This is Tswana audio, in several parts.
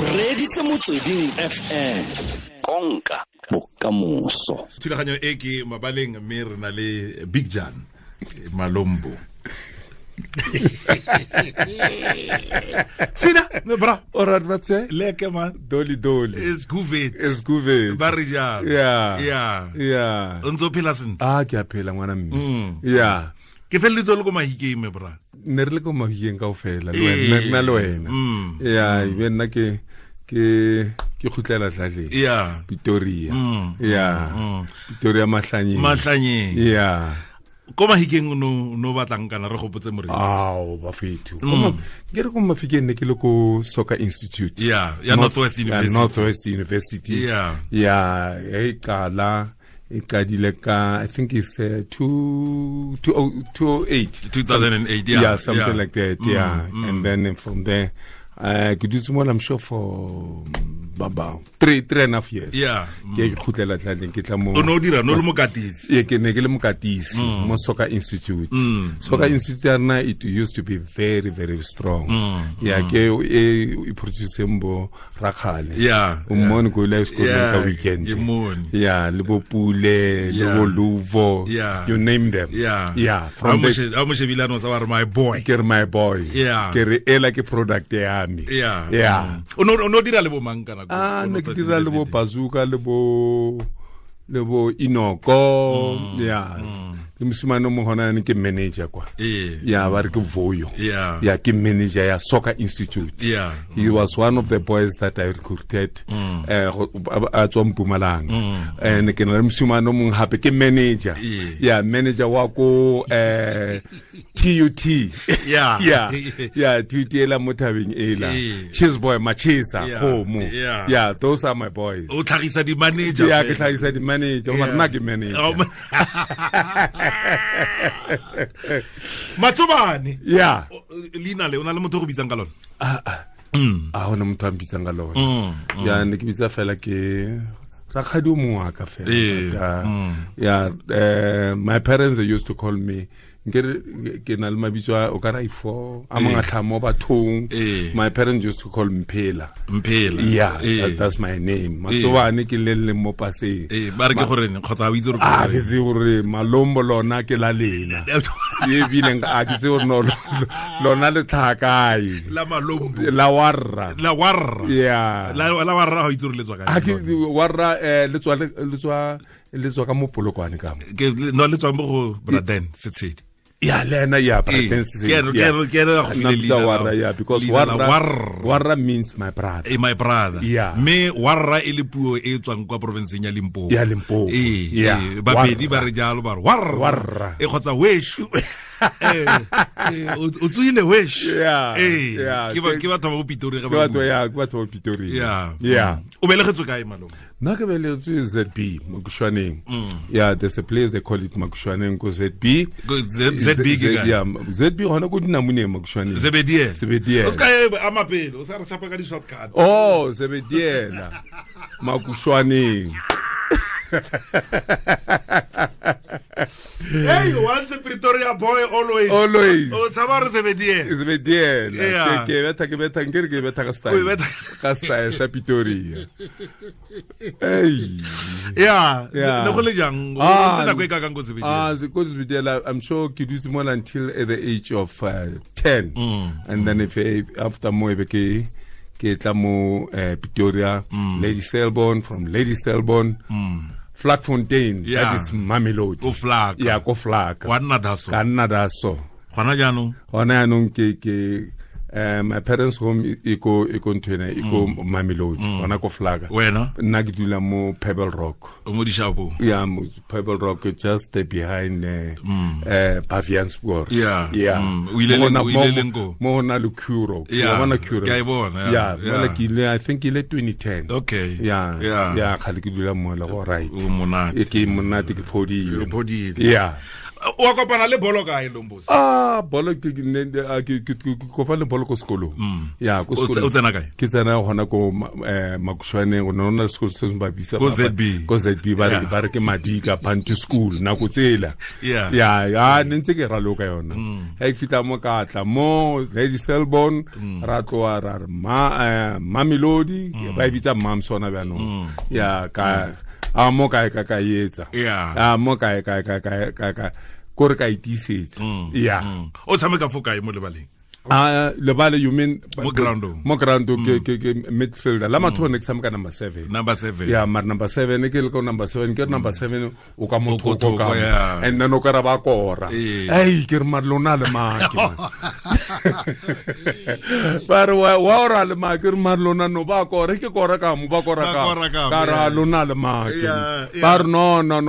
O reditse Motsweding FM, konka bokamoso. Thulaganyo e ke mabaleng, mme re na le Big Jan Malombo. Fina, me bra. Alright, batse. Leke man. Doli doli. It's good. It's good. Ba re jalo. Yeah. Yeah. Yeah. O ntse o phela sentle. Ah, ke a phela ngwana mme. Yeah. Ke feleletse le ko Mahikeng, me bra. Ne re le ko Mahikeng kaofela, le wena, nna le wena. Yeah, ebe nna ke khutlela tlaleng. Yeah. Pretoria. Yeah. Pretoria Mahlanyeng. Mahlanyeng. Yeah. Ko Mahikeng no batlang kana re gopotse moreetsi. Ao, bafethu. Ke re ko Mafikeng ne ke le ko Soccer Institute. Yeah, ya Northwest University. Yeah, Northwest University. Yeah. Yeah, e qala e qadile ka, I think it's 2008. 2008, yeah. Yeah, something like that, yeah. And then from there, ke dutse mo, I'm sure for about three and a half years. Yeah. Ke khutlela tlaleng, ke tla mo. O no dira no le mokatisi. Ye, ke ne ke le mokatisi mo Soccer Institute. Soccer Institute ya rena, it used to be very, very strong. Yeah, ke e produce mbo Rakhale. Yeah. O mmone ko ile sekolo ka weekend. Ke mmone. Yeah, le bo Pule, le bo Luvo. Yeah. You name them. Yeah. Yeah, from the a mo shebile no sa wa re my boy. Ke re my boy. Yeah. Ke re ela ke product ya me. Yeah. Yeah. O no dira le bo mang kana ko? Ah, ne ke dira le bo Bazooka, le bo Inoko. Yeah. Le mosimane o mongwe gona yanong ke manager kwa. Yeah, ba re ke Voyo. Yeah. Yeah, ke manager ya Soccer Institute. Yeah. He was one of the boys that I recruited. A tswa Mpumalanga. And ke na le mosimane o mongwe hape ke manager. Yeah, manager wa ko TUT. Yeah. Yeah. Yeah, TUT ela mo thabeng ela. Cheese boy Machisa Khomo. Yeah. Yeah, those are my boys. O tlhagisa di manager. Yeah, ke tlhagisa di manager. Mara nna ke manager. Matsobane. Yeah. Leina le o na le motho go bitsang ka lona? A hona motho a mpitsang ka lona. Yeah, ne ke bitsa fela ke rakgadi o mongwe wa ka fela. Yeah, my parents, they used to call me ke na le mabitso a o ka ra ifo a mangatla mo bathong. My parents used to call me Mphela. Mphela. Yeah, that's my name. Matsobane ke le le mo paseng. Ba re ke gore kgotsa o itse gore a ke se gore Malombo lona ke la lena. E bileng a ke se gore no lona le tlhakae. La Malombo. La warra. La warra. Yeah. La warra ha itse gore le tswa kae. A ke warra le tswa ka mo Polokwane ka mo. Ke no le tswa mo go Braden Setshedi. Yeah, Lena, yeah, Braden Setshedi. Ke yeah, because warra means my brother. My brother. Yeah. Me warra e le puo e tswang kwa provinceng ya Limpopo. Ya Limpopo. Yeah. Babedi ba re jalo ba re warra. Warra. E kgotsa weshu. O tswile weshu. Yeah. Yeah. Ke batho ba Pitori ga ba. Ke batho ba Pitori. Yeah. Yeah. O belegetswe kae malome? Nna ke belegetswe ZB, Makushwaneng. Yeah, there's a place they call it Makushwaneng ko ZB. ZB ke kae? Yeah, ZB gona ko Dinamoneng Makushwaneng. Zebediela. Zebediela. O ska e ama pele, o sa re chapa ka di shortcut. Oh, Zebediela. Makushwaneng. Hey, once a Pretoria boy, always. Always. Oh, tshaba re Zebediela. Zebediela. Ke betha nkere ke betha ka style. Ka style sa Pretoria. Hey. Yeah. Le go le jang? O ntse nako e ka kang ko Zebediela? Ah, ko Zebediela, I'm sure ke dutse mo until at the age of 10. And then if after mo ebe ke tla mo Pretoria, Lady Selborne, from Lady Selborne. Vlakfontein, yeah. That is Mamelodi. Ko Vlak. Yeah, ko Vlak. Wa nna daso. Ka nna daso. Gona jaanong? Gona jaanong ke my parents home e ko ntwena e ko Mamelodi, gona ko Vlak. Wena? Nna ke dula mo Pebble Rock. O mo Dishapong? Yeah, mo Pebble Rock, just behind Baviaanspoort. Yeah. Yeah. O ile leng ko? Mo hona le Curo. Yeah. Bona Curo. Ke a e bona. Yeah, mola ke ile, I think ile 2010. Okay. Yeah. Yeah. Yeah, kgale ke dula mo le go right. O monate. E ke monate, ke phodile. O phodile. Yeah. Wa kopana le bolo kae Lombosi? Ah, bolo ke kopana le bolo ko sekolong. Ya, ko sekolong. O tsena kae? Ke tsena gona ko Makushwaneng, go nna le sekolo se se ba bitsa ko ZB. Ko ZB ba re ke Madika Bantu School nako tsela. Yeah. Ya, ne ntse ke raloka yona. Ha ke fitla mo ka tla mo Lady Selborne ra tloa ra re Mamelodi ba e bitsa Mam sona bjanong. Ya ka a mo kae ka etsa. A mo kae ka kore ka itisetsa. Yeah. O tshameka fo kae mo lebaleng? Ah, lebale you mean mo groundong? Mo groundong ke midfielder. La matho ne ke tshameka number 7. Number 7. Yeah, mar number 7 ke le ko number 7 ke number 7 o ka motho ko ka. And then o ka ra ba kora. Ei, ke re mar lona le make. Ba re wa ora le make re mar lona no ba kora ke kora ka mo ba kora ka. Ka ra lona le make. Ba re no no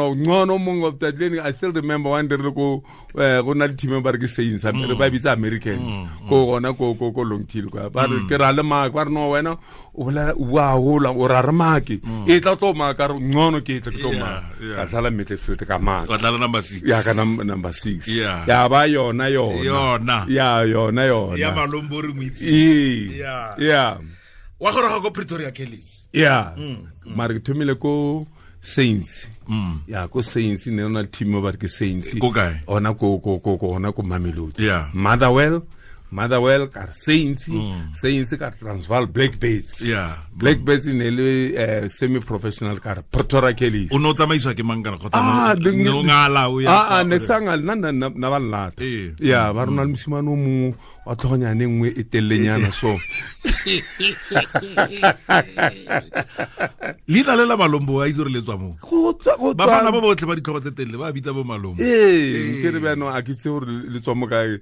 mongwe of that lane. I still remember one day re go go na le team ba re ke Saints re ba bitsa Americans ko gona ko Longtail kwa ba re ke ra le make ba re no wena o bolela wa hola o ra re make e tla tlo maka re ngono ke tla tlo maka ka tlala midfield ka maka ka tlala number 6 ya ka number 6 ya ba yona ya yona ya Malombo re moitse ya wa goroga ko Pretoria Kellys ya mara ke thomile ko Saints. Ya ko Saints ne ona team ba ke Saints. Ko kae? Ona ko ona ko Mamelodi. Yeah. Motherwell ka Saints, Saints ka Transvaal Blackbirds. Yeah. Blackbirds ne le semi professional ka Pretoria Kellys. O no tsamaiswa ke mang kana kgotsa no ngala o ya. Ne sanga nna na ba lata. Yeah, ba rona le mosimane o mongwe wa tlhogonyane nngwe e telelenyana so. Leina le la Malombo a itse gore le tswa mo. Ba fana ba botlhe ba ditlhogo tse telele ba bitsa bo Malombo. Ee, ke re bjano a ke itse gore le tswa mo kae.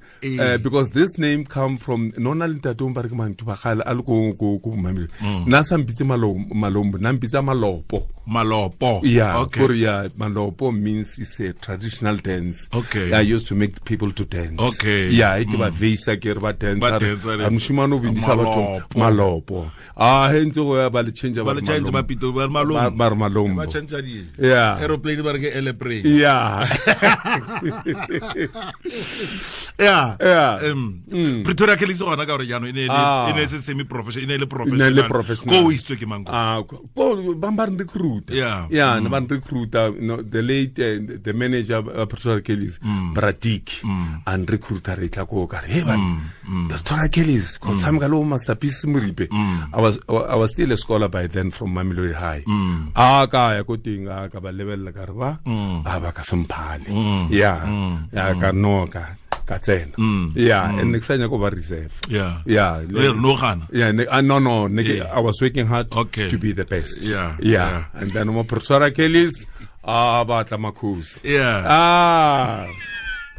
Because this name come from nona le ntate o ba re ke manthu ba gale a le ko Mamelodi. Nna sa mpitse Malombo, nna mpitsa Malopo. Malopo. Yeah, okay. Korea Malopo means it's a traditional dance. Okay. I used to make people to dance. Okay. Yeah, ke ba veisa ke re ba dance. A moshimane o bindisa batho Malopo. Ah, he ntse go ya ba le change ba le change ba pito ba Malombo. Ba Malombo. Ba change di. Yeah. Aeroplane ba re ke airplane. Yeah. Yeah. Yeah. Pretoria Kellys gona ka gore jaanong e ne se semi professional, e ne le professional. Ko o isitswe ke mang ko? Ah, ko ba ba recruit. Yeah. Yeah, ba recruiter, no, the late the manager Pretoria Kellys, Bradik, and recruiter re tla ko ka re hey man, Pretoria Kellys, ko tshameka le Masterpiece Moripe. I was still a scholar by then from Mamelodi High. Ah, ka ya ko teng a ka ba lebella ka re ba a ba ka semphale. Yeah. Ya ka no ka tsena. Yeah, and next time go ba reserve. Yeah. Yeah. Le no gana. Yeah, no, I was working hard to be the best. Yeah. Yeah. And then mo Pretoria Kellys ba tla makhosi. Yeah. Ah.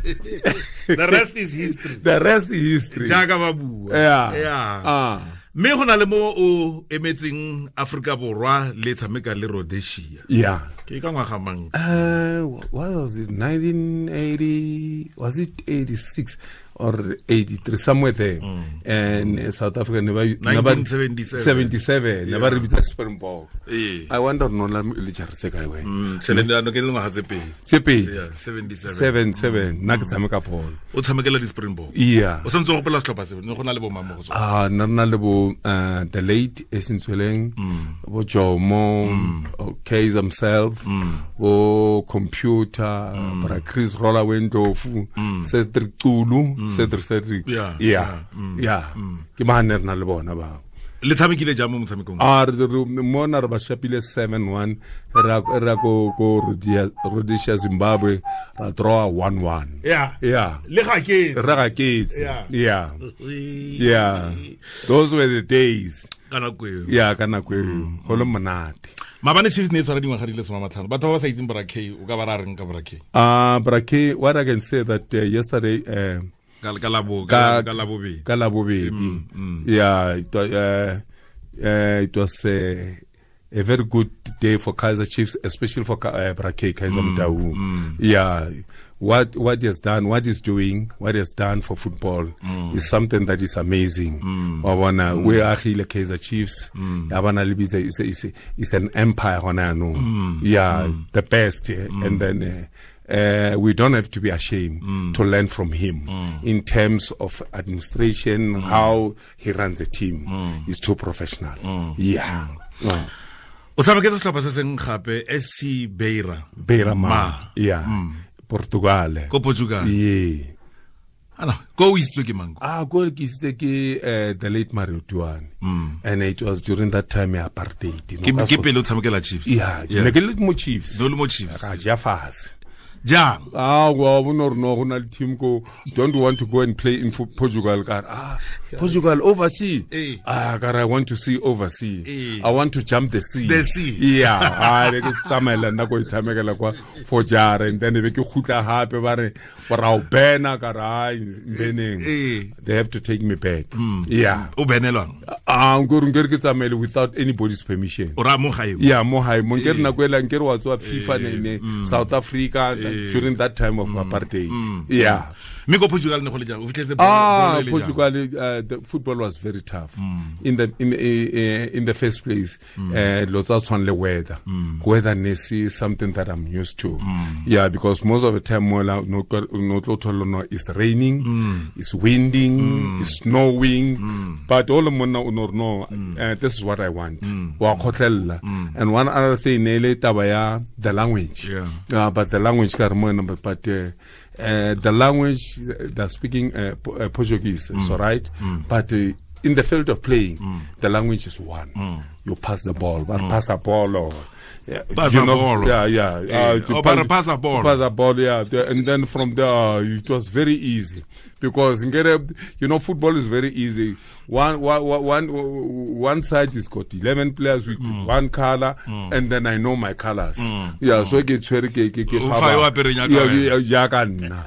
The rest is history. The rest is history. Jaaka ba bua. Yeah. Yeah. Ah. Mme go na le mo o emetseng Afrika Borwa le tshameka le Rhodesia. Yeah. Ke ka ngwaga mang? What was it? 1980, was it 86 or 83, somewhere there. And South Africa never 1977. 77, never bitsa Springbok. Yeah. I wonder no la le jare kae wena. Tšhelete no ke le ngwaga tse pedi. Tse pedi. Yeah, 77. 77 nna ke tshameka bolo. O tshamekela di Springbok. Yeah. O santse o gopola setlhopha se, ne go na le bo mang mo go sona? Ah, nna na le bo the late Esintsweleng, bo Jomo, Kaizer himself, bo computer, bra Chris Roller Wendlofu, Cedric Tulu, Cedric. Yeah. Yeah. Yeah. Ke ba ne re na le bona ba. Le tshamekile jang mo motshamekong? Ah, re mona re ba shapile 7-1, ra go Rhodesia Zimbabwe, ra draw 1-1. Yeah. Yeah. Le ga ke. Re ga ke. Yeah. Yeah. Yeah. Those were the days. Ka nako eo. Yeah, ka nako eo. Go le monate. Mabane Chiefs ne tshwara dingwaga di le 15. Batho ba ba sa itseng Bra K, o ka ba ra reng ka Bra K? Ah, Bra K, what I can say that yesterday ka labobedi. Ka labobedi. Yeah, it was a very good day for Kaizer Chiefs, especially for Bra K, Kaizer Motaung. Yeah, what he has done, what he's doing, what he has done for football is something that is amazing. We are here Kaizer Chiefs. It's an empire hona no. Yeah, the best. And then We don't have to be ashamed to learn from him in terms of administration, how he runs the team. He's too professional. Yeah. O tshameketse setlhopha se seng gape, SC Beira. Beira Ma. Yeah. Portugal. Ko Portugal. Yeah. Ana, ko o isitswe ke mang? Ah, ko ke isitswe ke the late Mario Tuane. And it was during that time ya apartheid. Ke pele o tshamekela Chiefs. Yeah, ne ke le mo Chiefs. No le mo Chiefs. Ka ja fase. Jang? Ah, wa bona gore no go na le team ko, don't want to go and play in Portugal. Ka ah, Portugal overseas. Ah, ka I want to see overseas. I want to jump the sea. The sea. Yeah, ah ke tsamaela nna ko itshamekela kwa for jara, and then be ke khutla hape ba re ra o bena ka ra beneng. They have to take me back. Yeah. O benelwang? Ah, nkore ke tsamaele without anybody's permission. O ra mo gae? Yeah, mo gae. Mo nkere nako ela nkere wa tswa FIFA ne South Africa during that time of apartheid. Yeah. Mme ko Portugal ne go le jang? O fitlhetse Portugal, the football was very tough. In the first place, lots of tshwana le weather. Weather ne se something that I'm used to. Yeah, because most of the time mola no tlo thola no it's raining, it's winding, it's snowing, but all monna o no no this is what I want. Wa khotlella. And one other thing ne le taba ya the language. Yeah. But the language ka re mona, but the language they're speaking Portuguese, is all right. But in the field of playing, the language is one. You pass the ball, but pass a ball or pass a ball. Yeah, yeah. Pass a ball. Pass a ball, yeah. And then from there, it was very easy because you know, football is very easy. One side is got 11 players with one color, and then I know my colors. Yeah, so ke tshwere ke ya ka nna.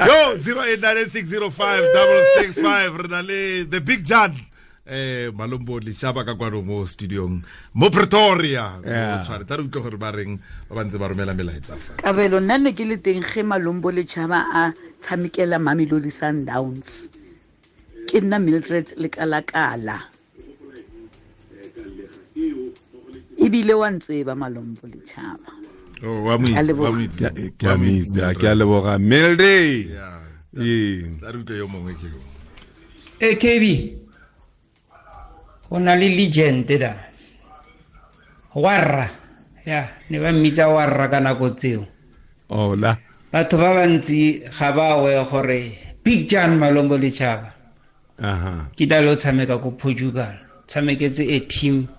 Yo, 0896056665 re na le the big Jan. Malombo Lichaba ka kwano mo studiong mo Pretoria. O tshware tla re utlwe gore ba reng ba bantse ba romela melaetsa fa. Kabelo nna ne ke le teng ge Malombo Lichaba a tshamekela Mamelodi Sundowns. Ke nna Mildred Lekalakala. Ebile wa ntseba Malombo Lichaba. Oh, wa mo itse. Ke a mitse, ke a leboga Mildred. Yeah. Tla re utlwe yo mongwe ke yo. KB. Go na le legend da warra, ya ne ba mmitsa warra ka nako tseo. Ola batho ba bantsi ga ba we gore Big Jan Malombo Lichaba ke tla lo tshameka ko Portugal, tshameketse a team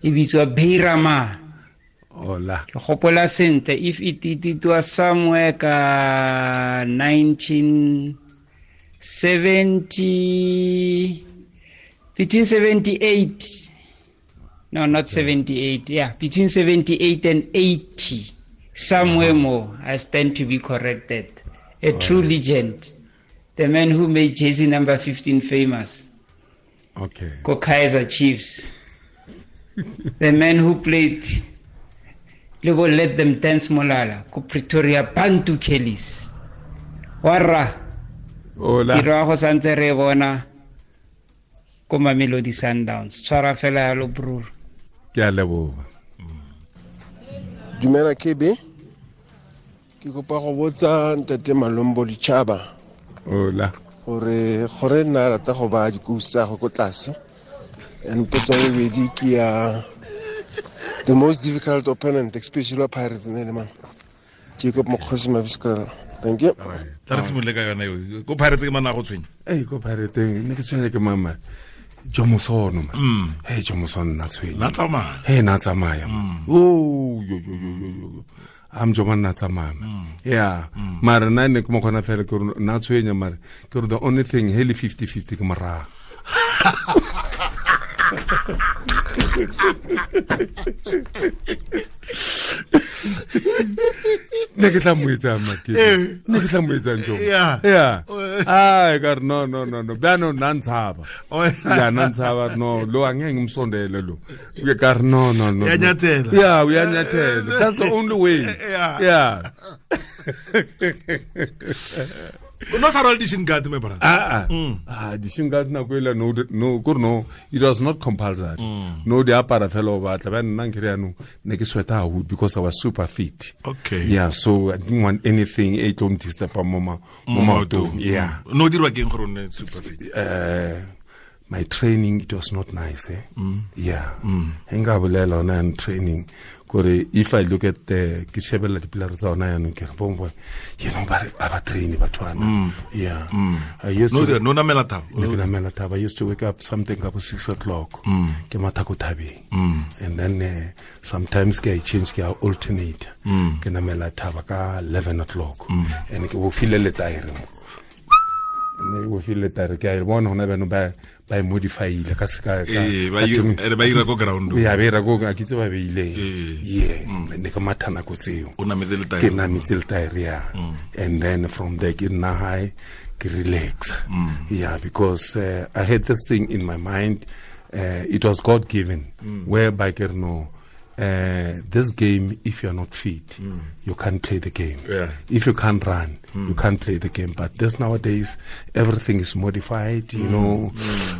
e bitswa Beira Mar. Ola ke gopola sentle, if it was somewhere ka 1970, between 78, no, not 78, yeah, between 78 and 80, somewhere more, I stand to be corrected. A true legend, the man who made jersey number 15 famous. Okay. Ko Kaizer Chiefs. The man who played Lebo Let Them Dance Molala, ko Pretoria Bantu Kellys. Warra. Hola. Tiro go santse re bona ko Mamelodi Sundowns. Tshwara fela yalo brur. Ke a leboga. Dumela KB. Ke kopa go botsa ntate Malombo Lichaba. Hola. Gore nna rata go ba dikousi tsa go ko tlase. And potso ya bobedi ke ya the most difficult opponent, especially Pirates ne le man. Jacob Mokgosi Mabiskala. Thank you. Tla re simolole ka yona eo. Ko Pirates ke mana go tshwenya. Ei, ko Pirates ne ke tshwenya ke mama. Jomosono man. Hey, Jomosono na tshwenya. Na tsamaya. Hey, na tsamaya. Oh, yo yo yo yo. Am joma na tsamaya. Yeah. Mara nna ne ke mo khona fela ke re na tshwenya mara ke re the only thing hele 50-50 ke mora. Ne ke tla mo etsang makete. Ne ke tla mo etsang jo. Yeah. Ai ka no no no no. Bano nna ntshaba. Ya nna ntshaba no lo angeke ngimsondele lo. Ke ka no no no. Uyanyathela. Yeah, uyanyathela. That's the only way. Yeah. Yeah. No sa rwala di-shin guard, my brother. Di-shin guard nako ela no no, it was not compulsory. No di apara fela o batla ba nna nkere yanong ne ke sweat haholo because I was super fit. Okay. Yeah, so I didn't want anything e tlo disturb mo maotong. Yeah. No dirwa keng gore o nne super fit? My training, it was not nice, eh? Yeah. Nka bolela ona and training kore if I look at the ke shebella dipilara tsa ona yanong ke re bo you know ba ba train bathwana. Yeah. I used to no namela thaba. Ne ke namela thaba. I used to wake up something about 6 o'clock. Ke matha ko thabeng. And then sometimes ke change ke alternate. Ke namela thaba ka 11 o'clock. And ke bo file le taere mo. Ne o file taere ke a bona hona bano ba ba modifyile ka seka ka ba ira ko ground. Ya ba ira ko ka kitse ba beile. Yeah, ne ka mathana ko tseo. O nametse le taere. Ke nametse le taere ya. And then from there ke nna high ke relax. Yeah, because I had this thing in my mind, it was God given, whereby ke no this game, if you're not fit, you can't play the game. Yeah. If you can't run, you can't play the game. But this nowadays, everything is modified, you know.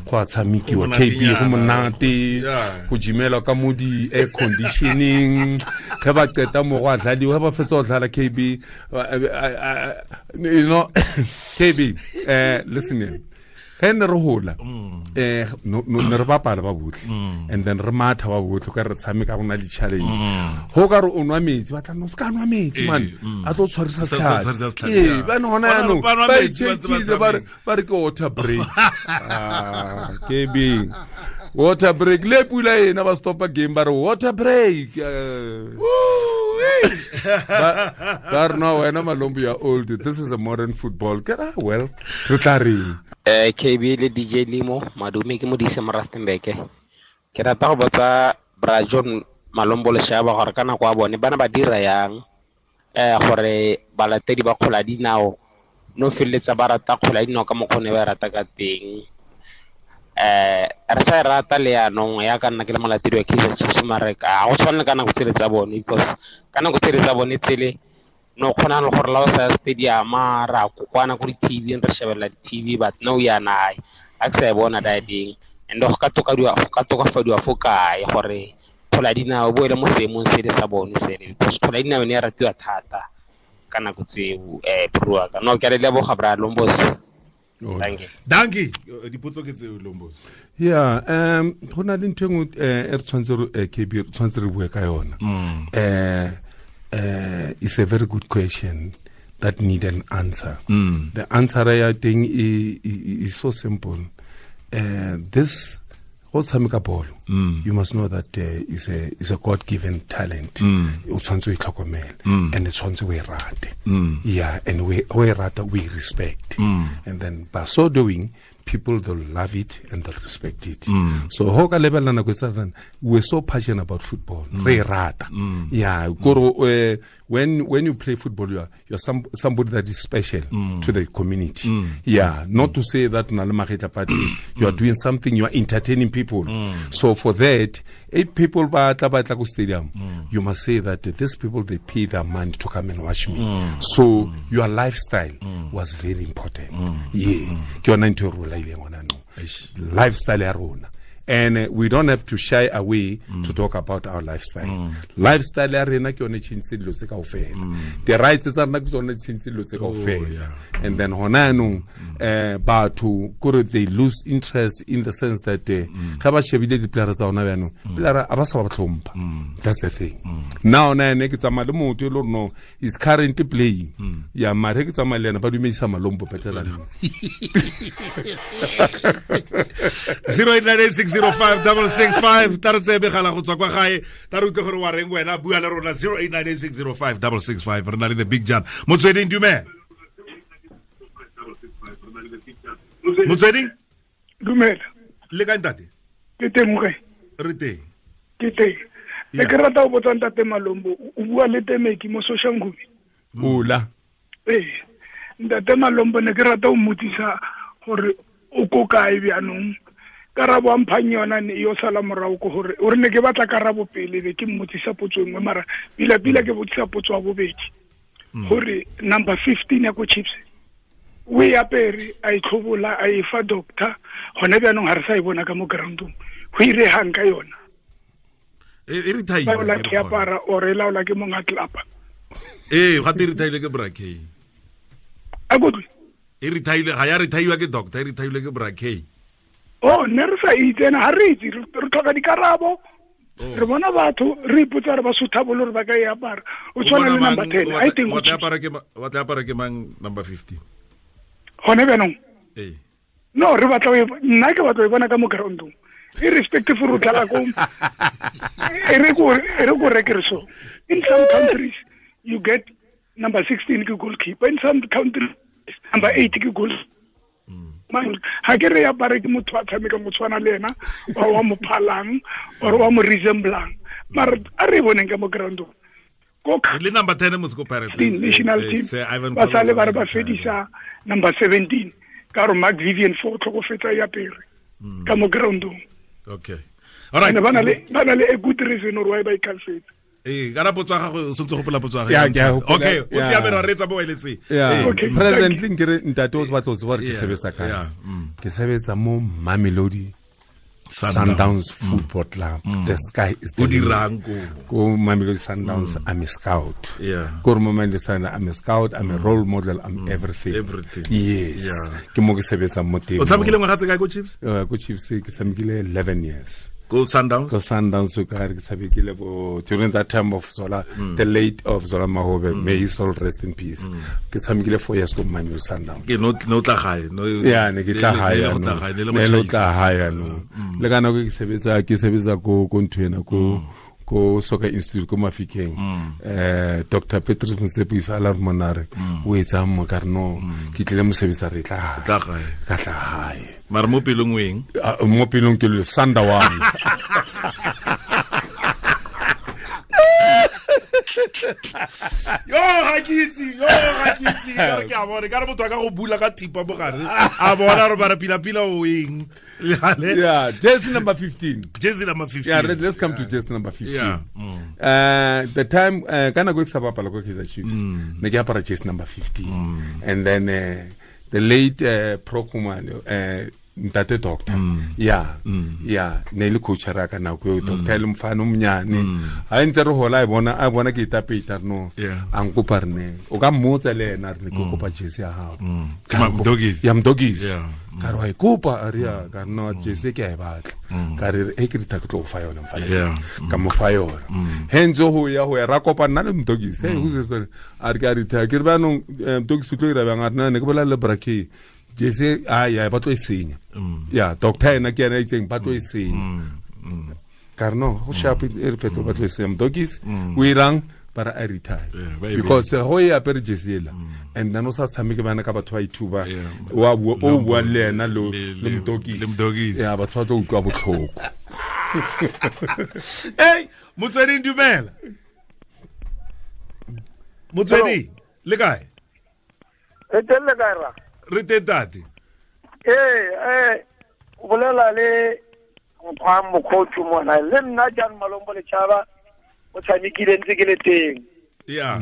Go a tshamekiwa KB go monate, go jimela ka mo di air conditioning. Ge ba qeta mo go a dladiwa, ge ba fetsa go dlala KB, you know, KB, listen here. Ge ne re hola ne re bapala ba botlhe, and then re matha ba botlhe ka re tshameka go na le challenge. Go ka re o nwa metsi ba tla no se ka nwa metsi man, a tlo tshwarisa setlhare. Ee, ba ne hona yanong ba itshekile ba re ke water break. KB water break le pula ena ba stopa game ba re water break. Ba re no wena Malombo, you are old, this is a modern football. Ke ra well re tla reng. KB le DJ Limo madume ke modise mo Rustenburg. Ke rata go botsa Bra John Malombo Leshaba gore ka nako ya bone bana ba dira yang gore balatedi ba kgola dinao no felletsa ba rata kgola dinao ka mokgwa ne ba rata ka teng. Re sa e rata le yanong ya ka nna ke le molatedi wa Kaizer Chiefs mare ka go tshwane ka nako tsele tsa bone, because ka nako tsele tsa bone tsele no kgona le gore la o sa stadium ra kokwana ko di-TV re shebella di-TV, but no yana a ke sa e bona diding. And go ka tokafadiwa fo kae gore kgola dinao bo ele mo seemong se le sa bone sele, because kgola dinao ne ya ratiwa thata ka nako tseo. Bro ka no ke a le leboga Bra Lombos. Dankie. Dipotso ke tseo Lombos. Yeah, go na le ntho e nngwe e re tshwanetse re KB re tshwanetse re bue ka yona. It's a very good question that need an answer. The answer I think is so simple. This go tshameka bolo, you must know that is a God-given talent. O tshwanetse o itlhokomele and tshwanetse o e rate. Yeah, and we rata, we respect. And then by so doing, people they'll love it and they'll respect it. So ho ka lebella nako tsa we're so passionate about football. Re rata. Yeah, koro when you play football, you're somebody that is special to the community. Yeah, not to say that na le magetla party, you are doing something, you are entertaining people. So for that, if people ba tla ko stadium, you must say that these people, they pay their money to come and watch me. So your lifestyle was very important. Yeah, ke yona ntho e re bolaileng hona no. Lifestyle ya rona. And we don't have to shy away to talk about our lifestyle. Lifestyle ya rena ke yone change dilo tse kaofela. The rights tsa rena ke tsone change dilo tse kaofela. And then hona yanong batho kore they lose interest in the sense that ga ba shebile di-player tsa hona yanong, player a ba sa ba tlhompha. That's the thing. Now na ene ke tsamaya le motho e le gore no is currently playing. Yeah, mare ke tsamaya le ena ba dumedisa Malombo better than him. 0898 605 665 tare tsebe gala go tswa kwa gae tare utlwe gore wa reng wena bua le rona 0898 605 665 re na le the big John Motsweding. Dumela Motsweding. Dumela le ka ntate? Ke teng mokae? Re teng. Ke teng. Ne ke rata go botsa ntate Malombo, o bua le Temeki mo Soshanguve. Ola. Ee, ntate Malombo ne ke rata o mmotsisa gore o ko kae bjanong. Karabo a mphang yona ne yo sala morago ko gore o re ne ke batla karabo pele be ke mmotsisa potso e nngwe, mara pila pila ke botsisa potso ya bobedi gore number 15 ya ko Chiefs O e apere a e tlhobola a e fa doctor gone bjaanong ga re sa e bona ka mo groundong go iregang ka yona e retire ke apara or e laola ke mong a tlapa ee ga te retire ke Brakey a kutlwe e retire ga ya retire ke doctor e retire ke Brakey oh ne re sa itse ena ga re itse re tlhoka dikarabo re bona batho re ipotsa re ba sotha bolo re ba ka e apara o tshwana le number 10 I think wa tla apara ke mang number 15 gone bjaanong ee no re batla nna ke batla e bona ka mo groundong irrespective of dlala ko e re ko rekere so in some countries you get number 16 ke goalkeeper in some countries number 8 ke goal ha ke re apare ke motho a tshameka mo tshwana le ena or wa mo phalang or wa mo resemblang mara a re boneng ka mo groundong ko le number 10 mo go Pirates national team ba sale ba re ba fedisa number 17 ka re Mark Vivian fo tlhokofetsa ya pere ka mo groundong. Okay. All right. Ba na le a good reason or why ba ikhalfetse. Eh, ka potso ya gago o sentse gopola potso ya gago. Okay, o siame ra retsa bo eletse. Presently nkere ntate o batla o tseba re ke sebetsa kae. Ke sebetsa mo Mamelodi Sundowns Football Club. The sky is the limit. Ko Mamelodi Sundowns, I'm a scout. Ko Mamelodi Sundowns, I'm a scout, I'm a role model, I'm everything. Everything. Yes. Ke mo ke sebetsang mo teng. O tshamekile ngwaga tse kae ko Chiefs? Ko Chiefs ke tshamekile 11 years. Go Sundowns? Go Sundowns, ke tshamekile bo during that time of Zola, the late of Zola Mahobe, may his soul rest in peace. Ke tshamekile 4 years ko Mamelodi Sundowns. Ke no tla gae, no. Yeah, ne ke tla gae. Ne lo tla gae no. Le kana ke sebetsa ko ntho ko ko Soccer Institute ko Mafikeng. Dr. Petrus Motsepe a la monare o etsa mo ka re no ke tlile mosebetsa re tla gae. Ka tla gae. Mara mo pelong weng? Mo pelong ke le Sandawana. Yo ga ke itse, ka re ke a bona, ka re motho a ka go bula ka thipa mo gare. A bona re bara pila pila o eng. Yeah, jersey number 15. Jersey number 15. Yeah, let's come to jersey number 15. Yeah. The time kana go sa bapala ko Kaizer Chiefs. Ne ke apara jersey number 15. And then the late Pro Khumalo, ntate doctor. Yeah. Yeah, ne le coach ra ka nako eo doctor le mfana o mnyane. Ha ntse re hola a bona ke itapeta no. A nkopa re ne. O ka mmotsa le ena re ne ke kopa jersey ya gago. Ke Mdogis. Ka re wa e kopa a re ya ka no jersey ke a e batla. Ka re e ke rita ke tlo go fa yona mfana. Ka mo fa yona. He ntse ho ya ra kopa nna le Mdogis. Hey, who's it? A re ke a rita ke re ba no Mdogis o tlo ira bang a re ne ke bolela le Brakey. Jesse ah yeah ba tlo e senya. Yeah, doctor ena ke ena itseng ba tlo e senya. Ka re no go sharp e re fetlo ba tlo e senya. Mdogis o irang bara a retire. Because go e apere jersey ela and then o sa tshameke bana ka batho ba ithuba wa o bua le ena le Mdogis. Yeah, batho ba tlo utlwa botlhoko. Hey, Motsweding dumela. Motsweding le kae? Re teng le kae ra? Re teng tate. Ee, o bolela le mokgwa mokgothu mona le nna Jan Malombo Lechaba o tshamekile ntse ke le teng. Yeah.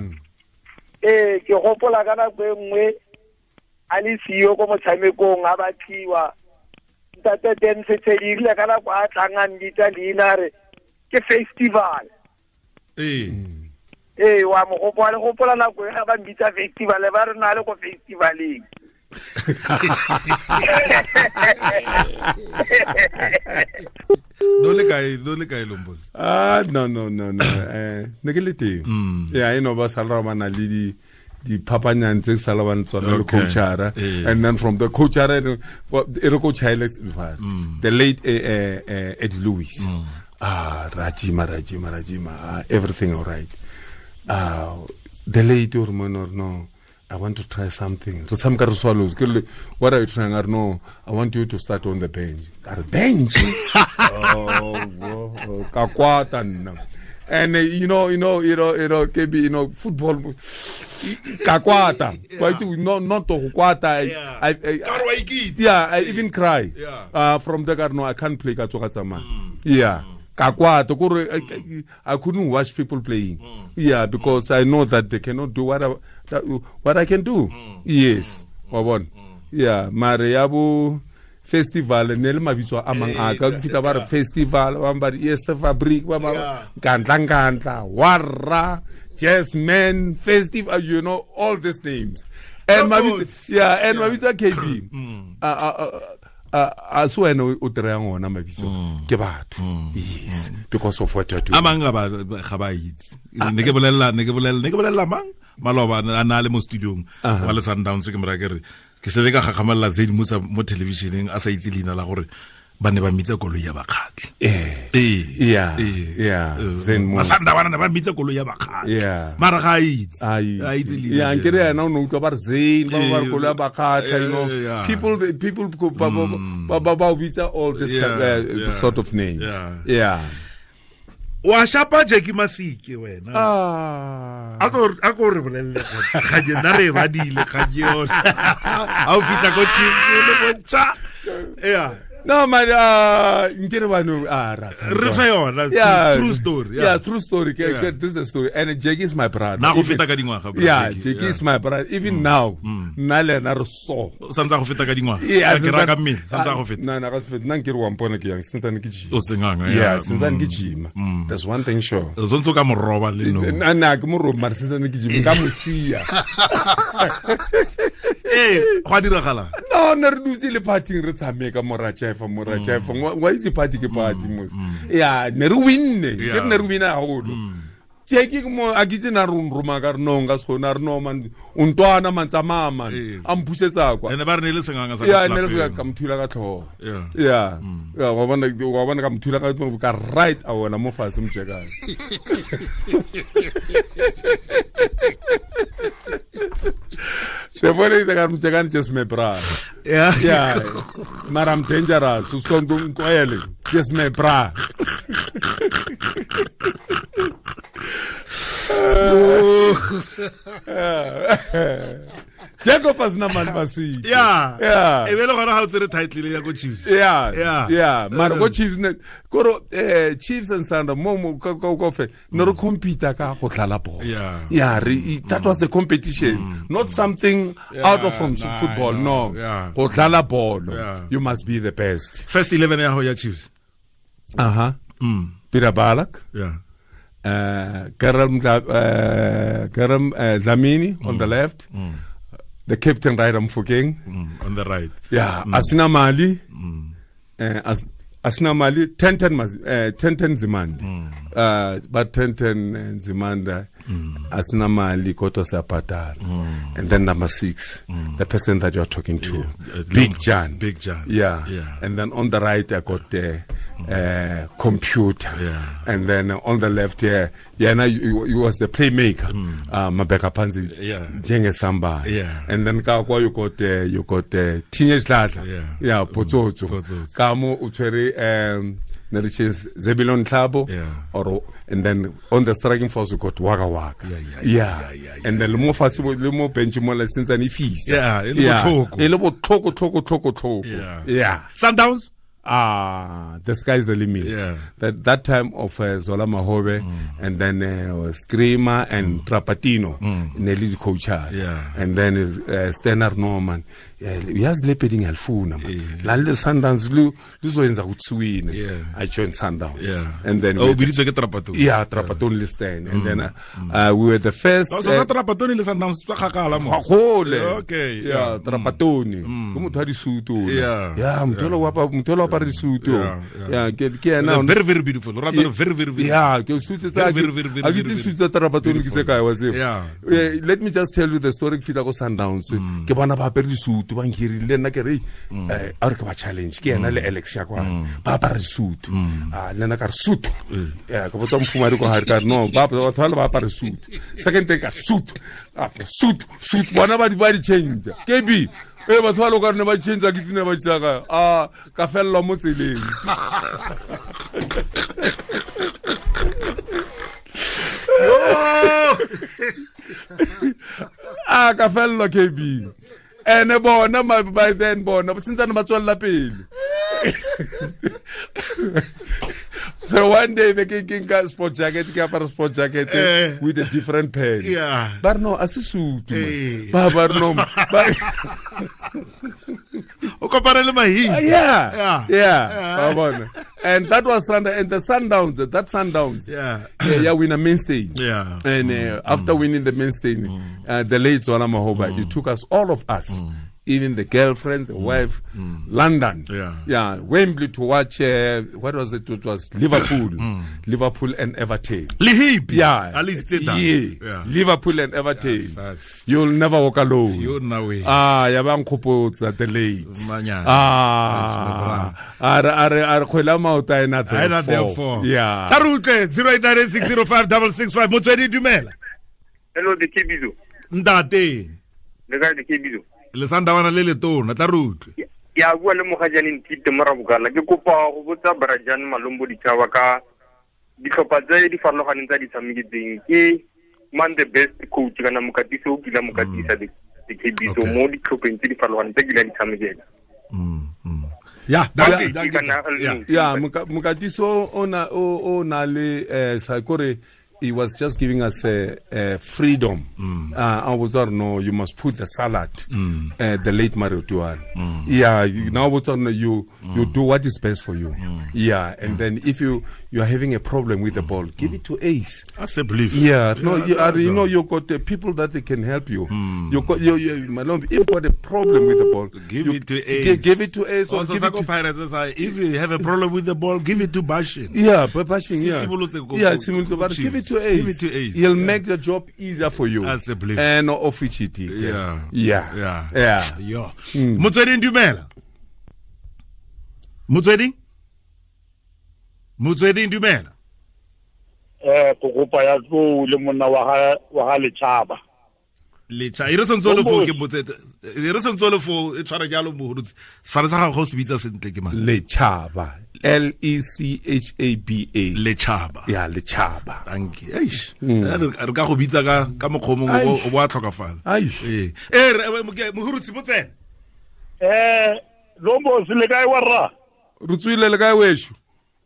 Ee, ke gopola ka nako e nngwe a le siyo ko motshamekong a batliwa ntate Dance Tshedile ka nako a tlang a mbitsa leina re ke festival. Ee. Ee, wa mo gopola le gopola nako e ba mbitsa festival ba re na le ko festivaleng. No le kae Lombosi? Ah no. Ne ke le teng. Yeah, you know ba sala ba na le di phapanyang tse sala ba tsona le coachara and then from the coachara e re coach Alex the late Eddie Lewis. Ah Rajima everything all right. The late or no I want to try something. Swallows. What are you trying? I don't know. I want you to start on the bench. Bench? Oh, and you know, KB, you know, football. Kakwata. Not to kwata. I even cry. Yeah. From the no, I can't play Katsokatsama. Yeah. Kakwata. I couldn't watch people playing. Yeah, because I know that they cannot do what I can do. Yes. Wa bona? Yeah, mare ya bo festival ne le mabitso a mang a ka fita ba re festival ba ba re Easter Fabric ba ba kantla warra Jazzman festival, you know, all these names. And mabitso, yeah, and mabitso a KB a se wena o dirang ona mabitso ke batho. Yes, because of what you do. A mang ga ba itse. Ne ke bolela mang maloba a na le mo studiong wa le Sundowns, ke mora ke re ke se ka gakgamalla Zane Musa mo televisioneng a sa itse leina la gore ba ne ba mitsa koloi ya bakgatlhe. Yeah. Zane Musa. Masanda ba ne ba mitsa koloi ya bakgatlhe. Mara ga a itse. A itse leina. Yeah, nkere yena o ne utlwa ba re Zane ba ba re koloi ya bakgatlhe, you know. People ba bitsa all this sort of names. Yeah. Wa shapa Jackie Masike wena. A ko re bolelle ga je nna re ba dile ga je yone. A o fitla ko Chiefs le bontsa. Yeah. No man, nkere ba no ra. Re fa yona true story. Yeah, true story. This is the story. And Jackie is my brother. Na go feta ka dingwaga. Yeah, Jackie is my brother. Even now, nna le ena re so. Santsa go feta ka dingwaga. Ke ra ka mmele, santsa go feta. No, na ga se feta. Nna nkere wa mpona ke yang, sentse ke gym. O senganga. Yeah, sentse ke gym. There's one thing sure. O tsontso ka moroba le no. Nna ke moroba mara sentse ke gym ka mosia. Go a diragala. No, ne re dutse le party re tshameka mora Jeff, wa itse party ke party mos. Yeah, ne re winne. Ke ne re wina haholo. Jackie mo a kitse na roma ka re no nka se gona re no man o ntwana man tsamaya man a mpusetsa kwa. Ene ba re ne le senganga sa. Yeah, ne le senganga ka mthula ka tlhogo. Yeah. Yeah, wa bona ka mthula ka right a wona mo fatshe mjekana. The funny thing I'm checking just my bra. Yeah. Yeah. But I'm dangerous. So don't just my bra. Jacob has na man masi. Yeah. Yeah. E bele gona ha o tsere title ya go Chiefs. Yeah. Yeah. Yeah. Mara go Chiefs ne koro Chiefs and Sundowns mo ka ka fe no re compete ka go tlala ball. Yeah. Yeah, that was the competition, not something out of from football. No. Go tlala ball. You must be the best. First 11 ya ho ya Chiefs. Uh-huh. Peter Balak. Yeah. Karam Dlamini on the left. The captain right Mofokeng on the right. Yeah, Asina Mali. Asina Mali 10-10 10-10 Nzimande. But 10-10 Nzimande Asina Mali Koto Sapatara. And then number 6, the person that you're talking to, Big Jan. Big Jan. Yeah. Yeah. And then on the right I got the computer. Yeah. And then on the left here, yeah, now you was the playmaker. Mabeka Panzi. Yeah. Jenge Samba. Yeah. And then ka you got teenage Dladla. Yeah. Yeah, Potsotso. Kamo utshwere Neriches Zebilon Tlabo, or and then on the striking force we got Waka Waka. Yeah. And then mo fatshe le mo bench mo la since ani fisa. Yeah, e le botlhoko. Yeah. Sundowns? The sky is the limit. Yeah. That time of Zola Mahobe and then Screamer and Trapatino, Nelly coacher. Yeah. And then Stenar Norman. Uyazi le padding alifuna man. La le Sundowns luzoyenza ukuthi win. I joined Sundowns. Yeah. And then oh, biditswe ke Trapatoni. Yeah, Trapatoni le Stan. And then we were the first. So Trapatoni le Sundowns tswa kgakala mo. Gole. Okay. Yeah, Trapatoni. Ke motho wa disutu. Yeah. Yeah, motho wa apara disutu. Yeah, ke ena. Very very beautiful. Rather very very very. Yeah, ke sutu tsa. Very very very. A ke tse sutu tsa Trapatoni ke tse kae wa tseba. Yeah. Let me just tell you the story ke fitla go Sundowns. Ke bona ba apere disutu. Ba nkirile le nna ke re a re ke ba challenge ke ena le Alex ya kwa ba apara disutu a le nna ka re sutu ya ke botsa mfumadi ko hare ka re no ba batho ba apara sutu second thing ka sutu sutu sutu bona ba di change KB batho ba lo ka re ne ba change ke tsene ba tsaka a ka fellwa mo tseleng a ka fellwa KB ene bona by then bona since ba tswella pele. So one day they ke nka sport jacket ke apara sport jacket with a different pen. Yeah. But no a se sutu ba ba no ba kopane le Mahi. Yeah. Yeah. And that was Sunday, and the Sundowns, that Sundowns. Yeah. Yeah, win a main stage. Yeah. And after winning the main stage, the late Zola Mahoba, he took us, all of us, even the girlfriends, the wife, London. Yeah. Yeah. Wembley to watch, what was it? It was Liverpool. Liverpool and Everton. Lihib. Yeah. At least yeah. Liverpool and Everton. Yes. You'll never walk alone. You'll know way. Ah, yabang the late. Ah. Are khwela maota ena therefore. Yeah. Tarutle 0896056665 Motswedi dumela. Hello the Kebizo. Ntate. Le kae the Kebizo? Le sandawana le letona tla rutlwe. Ya bua le mogajane Ntite Morabokala ke kopa go botsa Brajan Malombo Ditshaba ka ditlhopha tse di farologaneng tsa di tshameketseng ke man the best coach kana mokatisi o kila mokatisa the Kebizo mo ditlhopheng tse di farologaneng tse kila di tshamekela. Yeah, yeah, mokatiso o na le sakore. He was just giving us a freedom. I was no, you must put the salad. The late Mario Tuan. Yeah, now you do what is best for you. Yeah, and then if you are having a problem with the ball, give it to Ace. That's a belief. Yeah, no, you know you got the people that they can help you. You got you if you got a problem with the ball, give it to Ace. Give it to Ace. Also, or give it to Pirates. If you have a problem with the ball, give it to Bashin. Yeah, but Bashin. Yeah, yeah, but give it to Ace. Give it to Ace. He'll make the job easier for you. That's a belief. And officially. Yeah. Yeah. Yeah. Yeah. Yeah. Motswedi dumela. Motswedi? Motswedi dumela. Kokopa ya tlo le monna wa ga Lechaba. Lecha. E re sontso le fo ke motsete. E re sontso le fo e tshwara jalo mohurutsi. Sefane sa gago go se bitsa sentle ke mang? Lechaba. L E C H A B A. Lechaba. Yeah, Lechaba. Thank you. Eish. Re ka go bitsa ka mokgwa mongwe o bo a tlhokafala. Eish. Mohurutsi motsene. Lombo se le kae wa rra? Re tswile le kae wesho?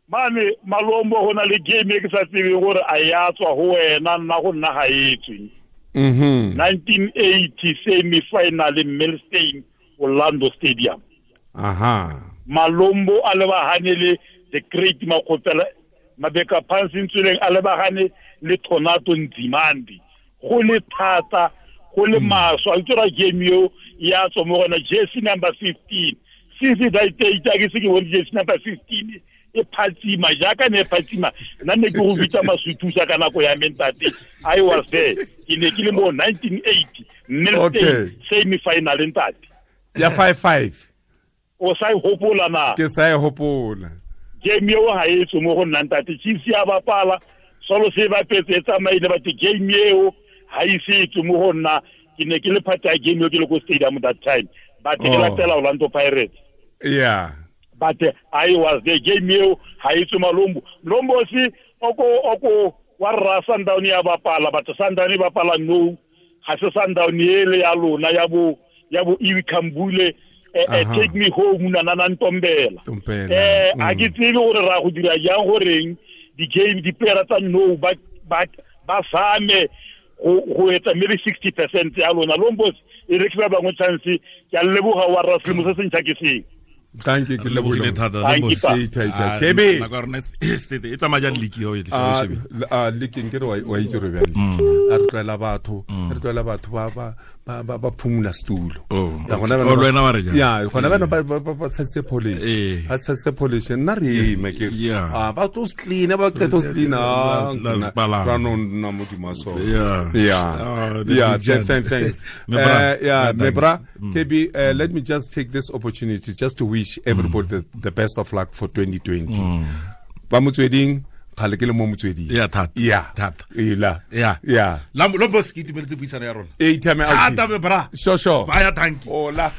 Mane Malombo go na le game e ke sa tsebeng gore a ya tswa go wena nna go nna ga e tswe. 1980 semi-final in Milstein, Orlando Stadium. Aha. Malombo a lebagane le the great Makgopela Mabeka Phansi Ntsuleng a lebagane le Tornado Nzimande. Go le thata, go le maswa, a tsora game eo ya tswa mo gona jersey number 15. Since that day ke se ke bone jersey number 15 e phatsima jaaka ne phatsima nna ne ke go bitsa masuthusa ka nako ya mentate. I was there. Ke ne ke le mo 1980 Milstein semi-final ntate. Ya 5-5. O sa e hopola na? Ke sa e hopola. Game eo ha e tswe mo go nna ntate. Chiefs ya bapala, solo se bapetse e tsamaile but game eo ha e se tswe mo go nna. Ke ne ke le part ya game eo ke le ko stadium that time. But ke latela Orlando Pirates. Yeah. But I was there. Game eo ha e tswe Malombo. Lombo si oko wa rra Sundown ya bapala but Sundown e bapala no. Ha se Sundown ele ya lona ya bo Iwi Kambule. Take me home na na Ntombela. A ke tsebe gore ra go dira jang goreng di game di player tsa no ba same go etsa maybe 60% ya lona. Lombos e re ke ba bangwe chance ke a leboga wa rra selemo se sentšha ke seng. Thank you, ke lebogile thata. Kebe e tsamaya jang league eo e league nke re wa itse re bjang a re tlwaela batho ba ba phumula setulo. Ya gona bana ba tshetse polish. Ba tshetse polish nna re eme ke ba tlo clean ba qeta clean ra no nna modimo so. Yeah. Yeah, thanks. Yeah, Mebra, KB, let me just take this opportunity just to wish everybody the best of luck for 2020. Ba motsweding khale ke le mo motsweding. Yeah, that. Yeah. That. Ila. Yeah. Yeah. Lombo se ke itumeletse puisano ya rona. E ithame out. Thata Mebra. Sure. Baya thank you. Hola.